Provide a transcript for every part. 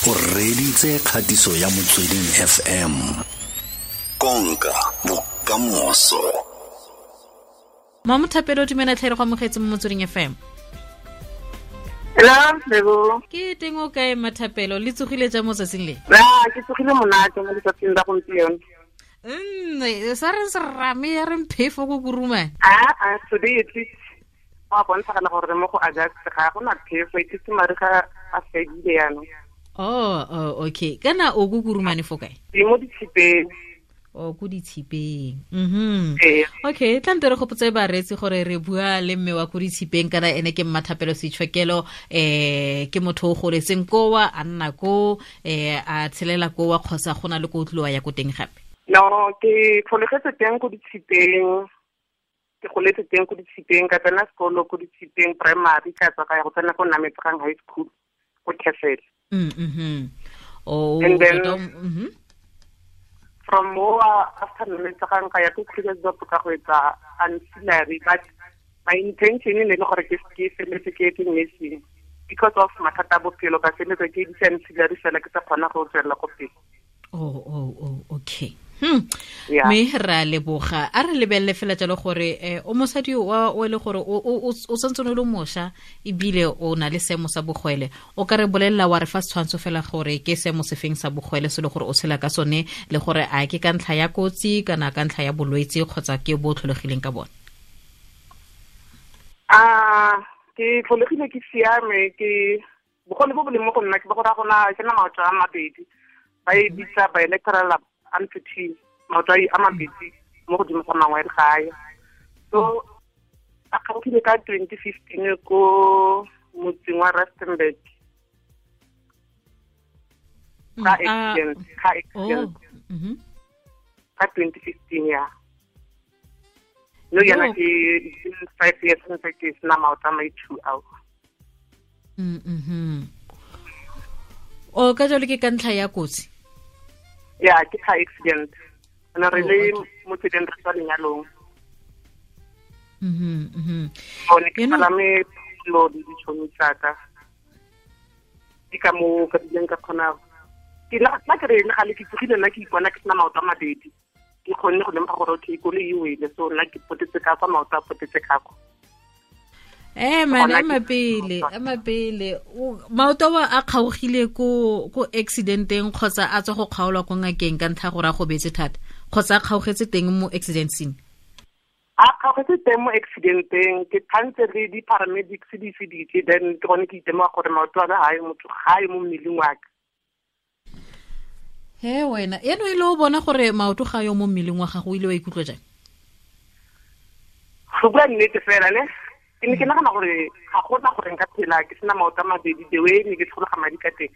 O reditse kgatiso ya Motsweding FM. Konka bokamoso. Mamothapelo, dumela tlhe, re go amogetse mo Motsweding FM. Hello, Lebo. Ke teng, o kae, Mathapelo? Le tsogile jang mo tsatsing le? Ra, ke tsogile monate mo letsatsing la gompieno. Sa reng serame ya reng phefo ko Kurumane? Ah, ah, today at least go a bontshagala gore mo go August ga go na phefo, e tlise mariga a fedile yaanong. Oh, okay. Kana o ko Kurumane fo kae? Ke mo Ditshipeng. O ko Ditshipeng. Ee. Okay, tla nte re gopotse bareetsi gore re bua le mme wa ko Ditshipeng, kana ene ke Mmathapelo Seitshokelo. Ke motho o goletseng kowa, a nna ko, a tshelela kowa, kgotsa go na le ko o tliwa ya ko teng gape? No, ke tlholegetse teng ko Ditshipeng. Ke goletse teng ko Ditshipeng, ka tsena sekolo ko Ditshipeng Primary, ka tswa ka ya go tsena ko Nametsegang High School ko Castle. Oh, And then tota, from mo after Nametsegang ka ya ko Krugersdorp ka go etsa ancillary, but my intention e ne le gore ke feletse ke etse nursing. Because of mathata a bophelo ka feletse ke editse ancillary fela, ke sa kgona go tswelela ko pele. Oh, okay. Mme ra leboga. A re lebelele fela jalo gore o mosadi wa o e le gore o santse o le mošwa ebile o na le seemo sa bogwele. O ka re bolelela wa re fa setshwantsho fela gore ke seemo sefeng sa bogwele se le gore o tshela ka sone, le gore a ke ka ntlha ya kotsi kana ka ntlha ya bolwetse kgotsa ke bo tlholegileng ka bone? Ke tlholegile ke siame, ke bogole bo bo leng mo go nna ke bo go raya gona ke na maoto a mabedi. Ba e bitsa bilateral amputee, maoto a mabedi mo godimo ga mangwe ga a ya. So a kgaogile ka 2015 ko motseng wa Rustenburg. Ka accident, ka accident. Ka 2015 ya. No, yana ke 5 years ntse ke sena maoto a mai 2 ao. O ka jalo ke ka ntlha ya kotsi? Ya, ke car accident. Ana re Oh, le okay. mo tseleng re tswa lenyalong. O ne ke palame pholo le ditšhomi tsa ka. Ke ka moo ka bileng ka kgona. Ke la ke re le gale ke tsogile nna ke ipona ke sena maoto a mabedi. Ke kgonne go lemoga gore okay, koloi e wele, so nna ke potetse ka kwa, maoto a potetse ka kwa. Man, Gona ema ke pele, ema pele. Maoto a kgaogile ko accidenteng kgotsa a tswa go kgaolwa ko ngakeng ka ntlha gore a gobetse thata, kgotsa a kgaogetse teng mo accident scene? A kgaogetse teng mo accidenteng, ke thantse le di-paramedics di feditse, then ke gone ke itemoga gore maoto a ka ga ayo motho, ga ayo mo mmeleng wa ka. He wena, eno e le o bona gore maoto ga ayo mo mmeleng wa gago, o ile wa ikutlwa jang? Go bua nnete fela ne, ke ne ke nagana gore ga gona gore nka phela ke sena maoto a mabedi, the way ne ke tshologa madi ka teng.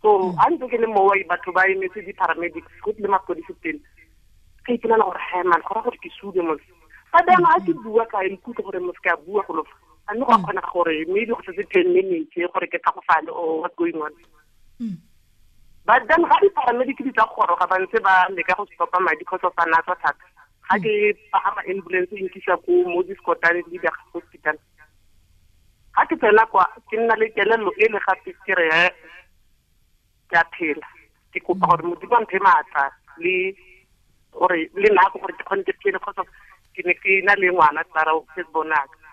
So a ntse ke le moo, batho ba emetse di-paramedics, go tlile mapodisi pele. Ka ipolela gore, he man, go raya gore ke sule mos. Fa jaanong ha ke bua ka ikutlwa gore mos ke a bua go lofa. A mme go a kgonega gore maybe go setse 10 minutes gore ke tlhagofale or what's going on. But then ga di-paramedic di tla goroga ba ntse ba leka go stopa madi because of a na tswa thata. Ga ke pagama ambulance e nkisa ko mo Discotane le Leader Hospital. Ga ke tsena kwa, ke nna le kelello e le gape ke re, ke a phela. Ke kopa gore Modimo a mphe maatla le gore le nako gore ke kgone ke phele, because ke ne ke na le ngwana Clara o first born wa ka.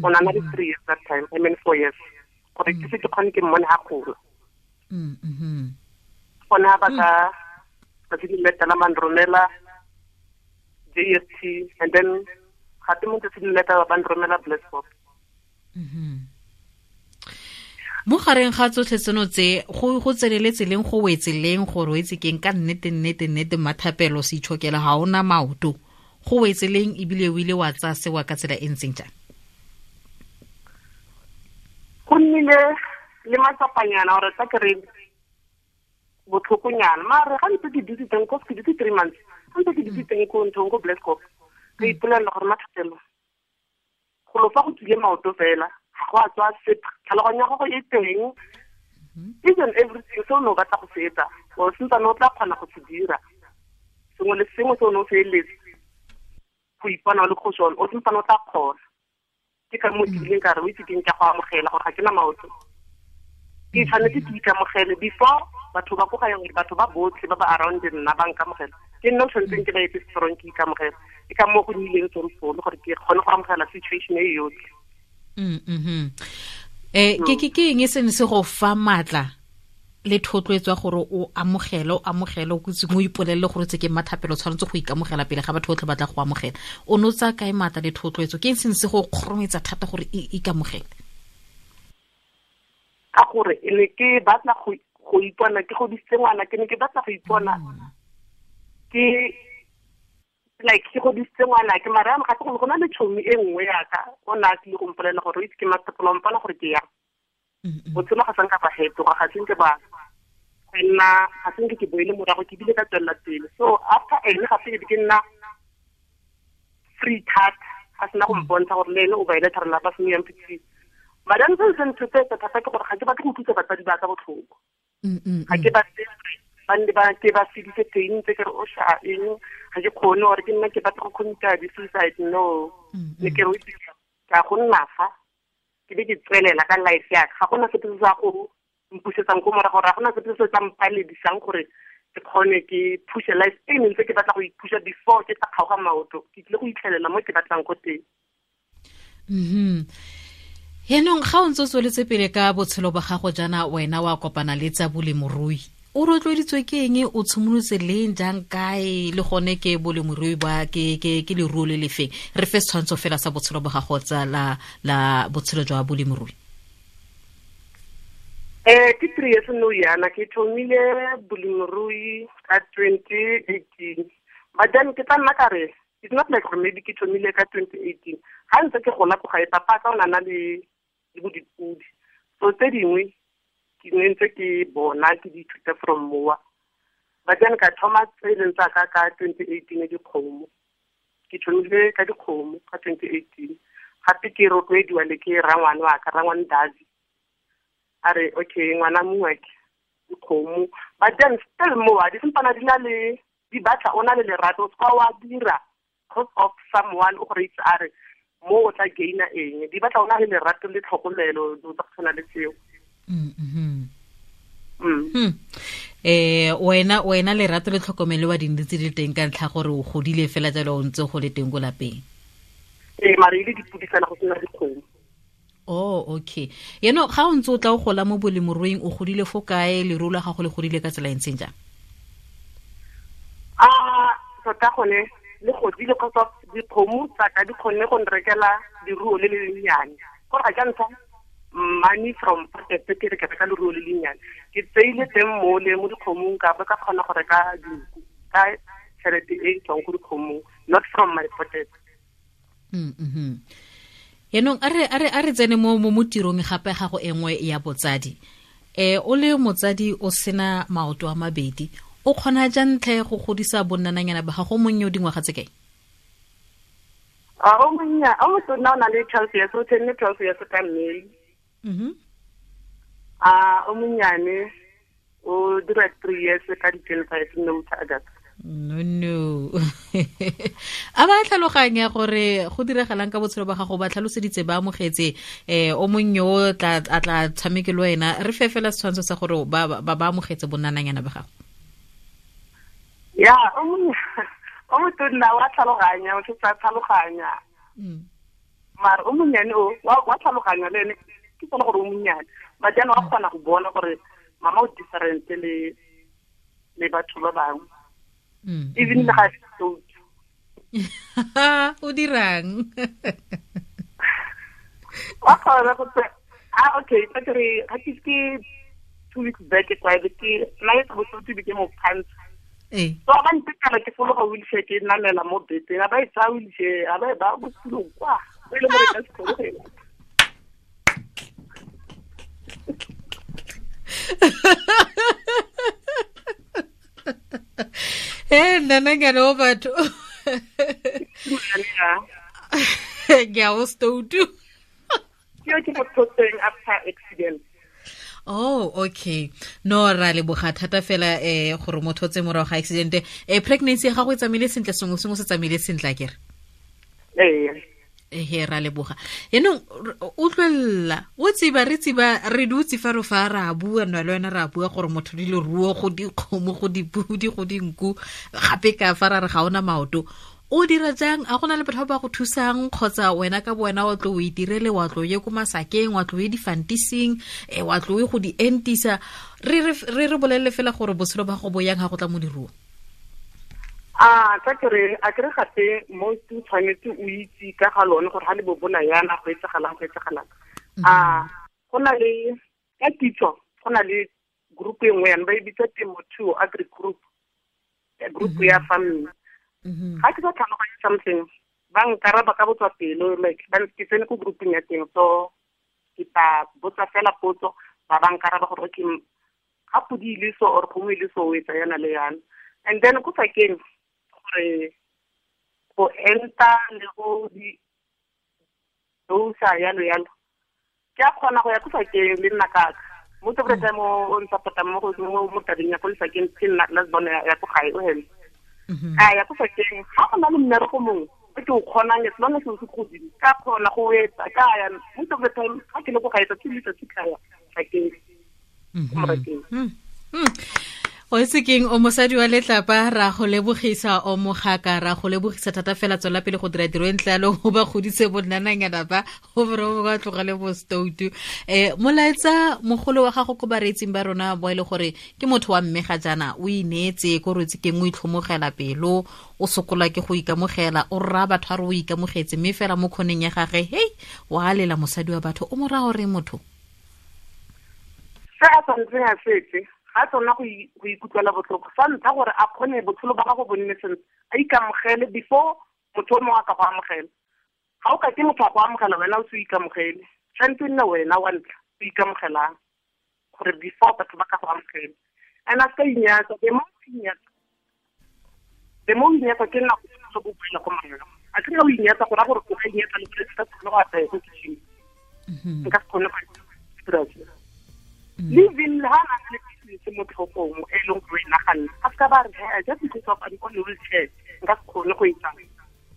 O na le 3 years that time, I mean 4 years. Gore ke se ke kgone ke mmone ha gola. Gone ha ba ka tsatsi le latelang ba nromela JST, and then gape mo tsatsi le latelang ba nromela Blesbok. Mo gareng ga tsotlhe tseno tse, go tseneletse leng, go wetse leng gore o itse keng ka nnete, nnete, nnete, Mmathapelo Seitshokelo ga ona maoto, go wetse leng ebile o ile wa tsaya sewa ka tsela e ntseng jang? Go nnile le matsapanyana gore tla ke re botlhokonyana, mare ga ntse ke dutse teng, cause ke dutse 3 months, ga ntse ke dutse teng ko nthong ko Blesbok, ka ipolelela gore Mmathapelo, go lo fa go tswile maoto fela, ga go a tswa sepe, tlhaloganyo ya gago e teng, each and everything se o ne o batla go se etsa, o sentsane o tla kgona go se dira, sengwe le sengwe se o ne o se eletse go ipona o le go sone, o sentsane o tla kgona. Ke ka moo ke ileng ka re, o itse keng, ke a go amogela gore ga ke na maoto. Ke tshwanetse ke ikamogele before batho ba ko gae, gore batho ba botlhe ba ba around nna ba nkamogela. Ke nna o tshwanetseng ke ba etse strong, ke ikamogela. Ke ka moo go nnileng tsone gore ke kgone go amogela situation e yotlhe. Ke eng e sene se go fa matla le thotloetso ya gore o amogele, o kutse mo ipolelele gore tse ke mathapelo, tshwanetse go ikamogela pele ga batho botlhe ba tla go amogela. O no tsa kae matla le thotloetso? Ke eng sene se go kgorometsa thata gore ikamogele? Ka gore e ne ke batla go ipona ke godisitse ngwana, ke ne ke batla go ipona ke like ke godisitse ngwana ke mara ga go go na le tšhomi e nngwe yaka o na a tlile go mpolelela gore o itse ke mathapelo, mpona gore ke yang. Botshelo ga sanka ba fetoga, ga senke ba nna, ga senke ke boele morago, ke bile ka tswelela pele. So after ene gape ke nna free thata, ga sena go mpontsha gore le ene o bilateral ba se amputee. Madame se se nthotsetsa thata ke gore ga ke batle go utlwisa batsadi ba ka botlhoko. Ga ke batle ba nne ba ke ba fedise teng tse ke re o sha eng, ga ke kgone gore ke nna ke batla go commit-a di-suicide. No, ne ke re o itse ka go nna fa ke be ke tswelela ka life ya ka. Ga gona sepe se sa go mpusetsang ko morago, ga gona sepe se se tla mpaledisang gore ke kgone ke push-e life e ne ntse ke batla go i-push-a before ke tla kgaoga maoto. Ke tlile go itlhelela mo ke batlang ko teng. Yaanong ga o ntse o tsweletse pele ka botshelo ba gago jaana, wena wa kopana le tsa bolemirui, o rotloeditswe ke eng? O tshimolotse leng, jang, kae, le gone ke bolemirui ba ke leruo le lefeng? Re fe setshwantsho fela sa botshelo ba gago tsa la botshelo jwa bolemirui. Ke 3 years no yana ke thomile bolemirui ka 2018. But then ke tla nna ka re it's not like gore maybe ke thomile ka 2018. Ga ntse ke gola ko gae, papa ka o na na le bo dipudi. So tse dingwe ke ne ntse ke bona ke di ithuta from mowa. But then ka thoma tse e leng tsa ka ka 2018 dikgomo. Ke thomile ka dikgomo ka 2018. Gape ke rotloediwa le ke rangwane wa ka, rangwane Davi. A re okay ngwana mongwe ke dikgomo. But then still mowa di sempana di na le di batla o na le lerato, o seka wa dira cause of someone o gore itse a re mo o tla gaina eng. Di batla o na le lerato le tlhokomelo, dilo tsa go tshwana le tseo. Wena lerato le tlhokomelo wa dintsi di teng ka ntlha gore o godile fela jalo o ntse go le teng ko lapeng. Mare e le dipudi fela go sena dikgomo. Oh, okay. Yaanong ga o ntse o tla o gola mo bolemiruing, o godile fo kae? Leruo la gago le godile ka tsela e ntseng jang? Tota gone le godile kgotsa dikgomo tsa ka di kgonne go nrekela leruo le le lennyane. Gore ga ke ntsha money from pocket ke re ke reka leruo le lennyane. Ke tseile teng mo le mo dikgomong ka ba ka kgona go reka dinku ka tšhelete e tswang ko dikgomong, not from my pocket. Yaanong a re tsene mo tirong gape gago e nngwe ya botsadi. O le motsadi o sena maoto a mabedi, o kgona jang tlhe go godisa bonnananyana ba gago? Monnye o dingwaga tse kae? O monnye, o motona o na le 12 years, o tenne 12 years ka May. O monnyane o dira 3 years ka di 25 no August. No. A ba tlhaloganya gore go diragalang ka botshelo ba gago, ba tlhaloseditse, ba amogetse o monnye o tla a tla tshameke le wena. Re fe fela setshwantsho sa gore ba ba amogetse bonnananyana ba gago. Ya, o motonna wa tlhaloganya, o tsa tlhaloganya. Mara o monnyane o wa tlhaloganya le ene, ke tsone gore o monnyane. But jaanong wa kgona go bona gore mama o different le batho ba bangwe. Even le ga se O dirang? Wa kgona go tse okay, ka re ga ke 2 weeks back ke kwa ke na le go tsotsi ke mo pants. So ba ntekala ke fologa wheelchair ke namela mo beteng, a ba e tsaya wheelchair, a ba e ba mo setulong kwa, e le gore ka se kgone go e lata. Nnananyana o batho. Ke a o stoutu. Ke mo thotseng after accident. Oh, okay. No, ra leboga thata fela gore motho o tse morago ga accident. Pregnancy ya gago e tsamaile sentle, sengwe sengwe se tsamaile sentle akere? Ee. He ra leboga. Yaanong utlwelela o tseba re tseba re dutse fa re fa ra bua nna le wena ra bua gore motho di leruo go dikgomo go dipudi go dinku gape ka fa ra re ga ona maoto. O dira jang? A gona le batho ba go thusang kgotsa wena ka bo wena wa tlo o itirele, wa tlo ye ko masakeng, wa tlo ye difantising, wa tlo ye go di entisa? Re re bolelele fela gore botshelo ba go bo yang ga go tla mo diruo. A ka kere a kere gape mo o tshwanetse o itse ka ga lone gore ga le bobola yana go etsagalang go etsagalang. A go na le ka kitso, go na le group e nngwe yana ba e bitsa Temothuo Agri Group, group ya farming. Ga ke sa tlhaloganye something, ba nkaraba ka botswa pelo, like ba ke tsene ko grouping ya teng, so ke tla botsa fela potso, ba nkaraba gore okay ga podi ile so or kgomo ile so o etsa yana le yana. And then ko sakeng gore go enta le go di dosa yalo yalo, ke a kgona go ya ko sakeng le nna kaka. Most of the time o ntshapota mo go mo tabeng ya ko lesakeng, ke nna last born ya ko gae o hele. A ya ko sakeng ga go na le mmereko mongwe o ke o kgonang, as long as o se godimo ka kgona go etsa ka ya. Most of the time ga ke le ko gae tsatsi le tsatsi ka ya sakeng ko morakeng. O itse keng, o mosadi wa letlapa, ra go lebogisa, o mogaka, ra go lebogisa thata fela. Tswela pele go dira tiro e ntle yalo, o ba godise bonnananyana ba go bore ba tlogele bo stoutu. Molaetsa mogolo wa gago ko bareetsing ba rona bo e le gore ke motho wa mme ga jaana o ineetse ko rotse keng, o itlhomogela pelo, o sokola ke go ikamogela, o rra batho a re o ikamogetse, mme fela mo kgoneng ya gage hei wa lela mosadi wa batho, o mo raya gore motho se a tshwanetseng a setse ga tsona go ikutlwela botlhoko sa ntlha gore a kgone botshelo ba gago bo nne sentle, a ikamogele before motho o mongwe a ka go amogela. Ga o ka ke motho a go amogela wena o se o ikamogele, tshwanetse nne wena wa ntlha o ikamogelang gore before batho ba ka go amogela. And a se ka inyatsa, the more o inyatsa, the more o inyatsa ke nako e go boela ko morago. A ke re o inyatsa go raya gore o ka inyatsa le gore se ka kgone go apaya ko kitchen, nka se kgone go dira se. Living ha na le business mo tlhogong e leng gore e naganne, a se ka ba re hey, just because of I'm on wheelchair nka se kgone go etsa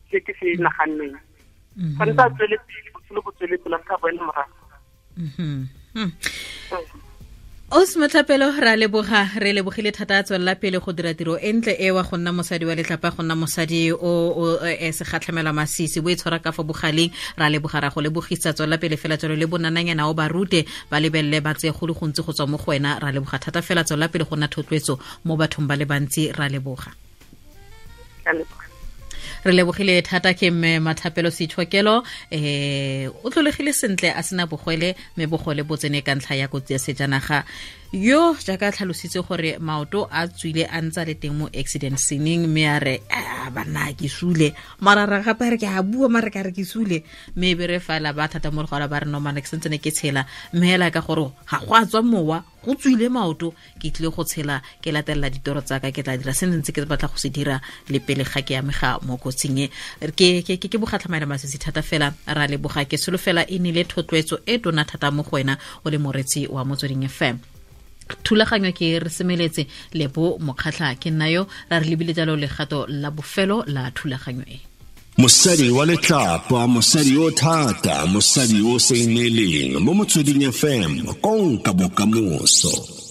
se ke se naganneng. Tshwanetse a tswele pele, botshelo bo tswele pele, a se ka boela morago. Ausi Mathapelo, ra leboga, re lebogile thata. Tswelela pele go dira tiro e ntle e wa go nna mosadi wa letlapa, go nna mosadi o segatlhamela masisi, bo e tshwara ka fa bogaleng. Ra leboga, ra go lebogisa. Tswelela pele fela jalo le bonananyana o ba rute, ba lebelele, ba tseye go le gontsi go tswa mo go wena. Ra leboga thata fela, tswelela pele go nna thotloetso mo bathong ba le bantsi. Ra leboga. Re lebogile thata ke mme Mathapelo Seitshokelo, o tlholegile sentle a sena bogwele, mme bogwele bo tsene ka ntlha ya kotsi ya sejanaga. Yo jaaka tlhalositse gore maoto a tswile a ntsa le teng mo accident sceneng, mme a re a banna ke sule, mara ra gape re ke a bua mara ka re ke sule, mme e be re fela ba thata mo legora ba re no mana ke sentse ne ke tshela, mme hela ka gore ga go a tswa mowa, go tswile maoto, ke tlile go tshela, ke latelela ditoro tsa ka, ke tla dira se ntse ke batla go se dira le pele ga ke amega mo kotsing e. Ke bogatlhamaela masisi thata fela, ra leboga. Ke solofela e nile thotloetso e tona thata mo go wena o le moretsi wa Motsweding FM. Thulaganyo ke re semeletse Lebo Mokgatlha, ke nna yo, ra re lebile jalo legato la bofelo la thulaganyo e. Mosadi wa letlapa, mosadi o thata, mosadi o sa ineeleng mo Motsweding FM, konka bokamoso.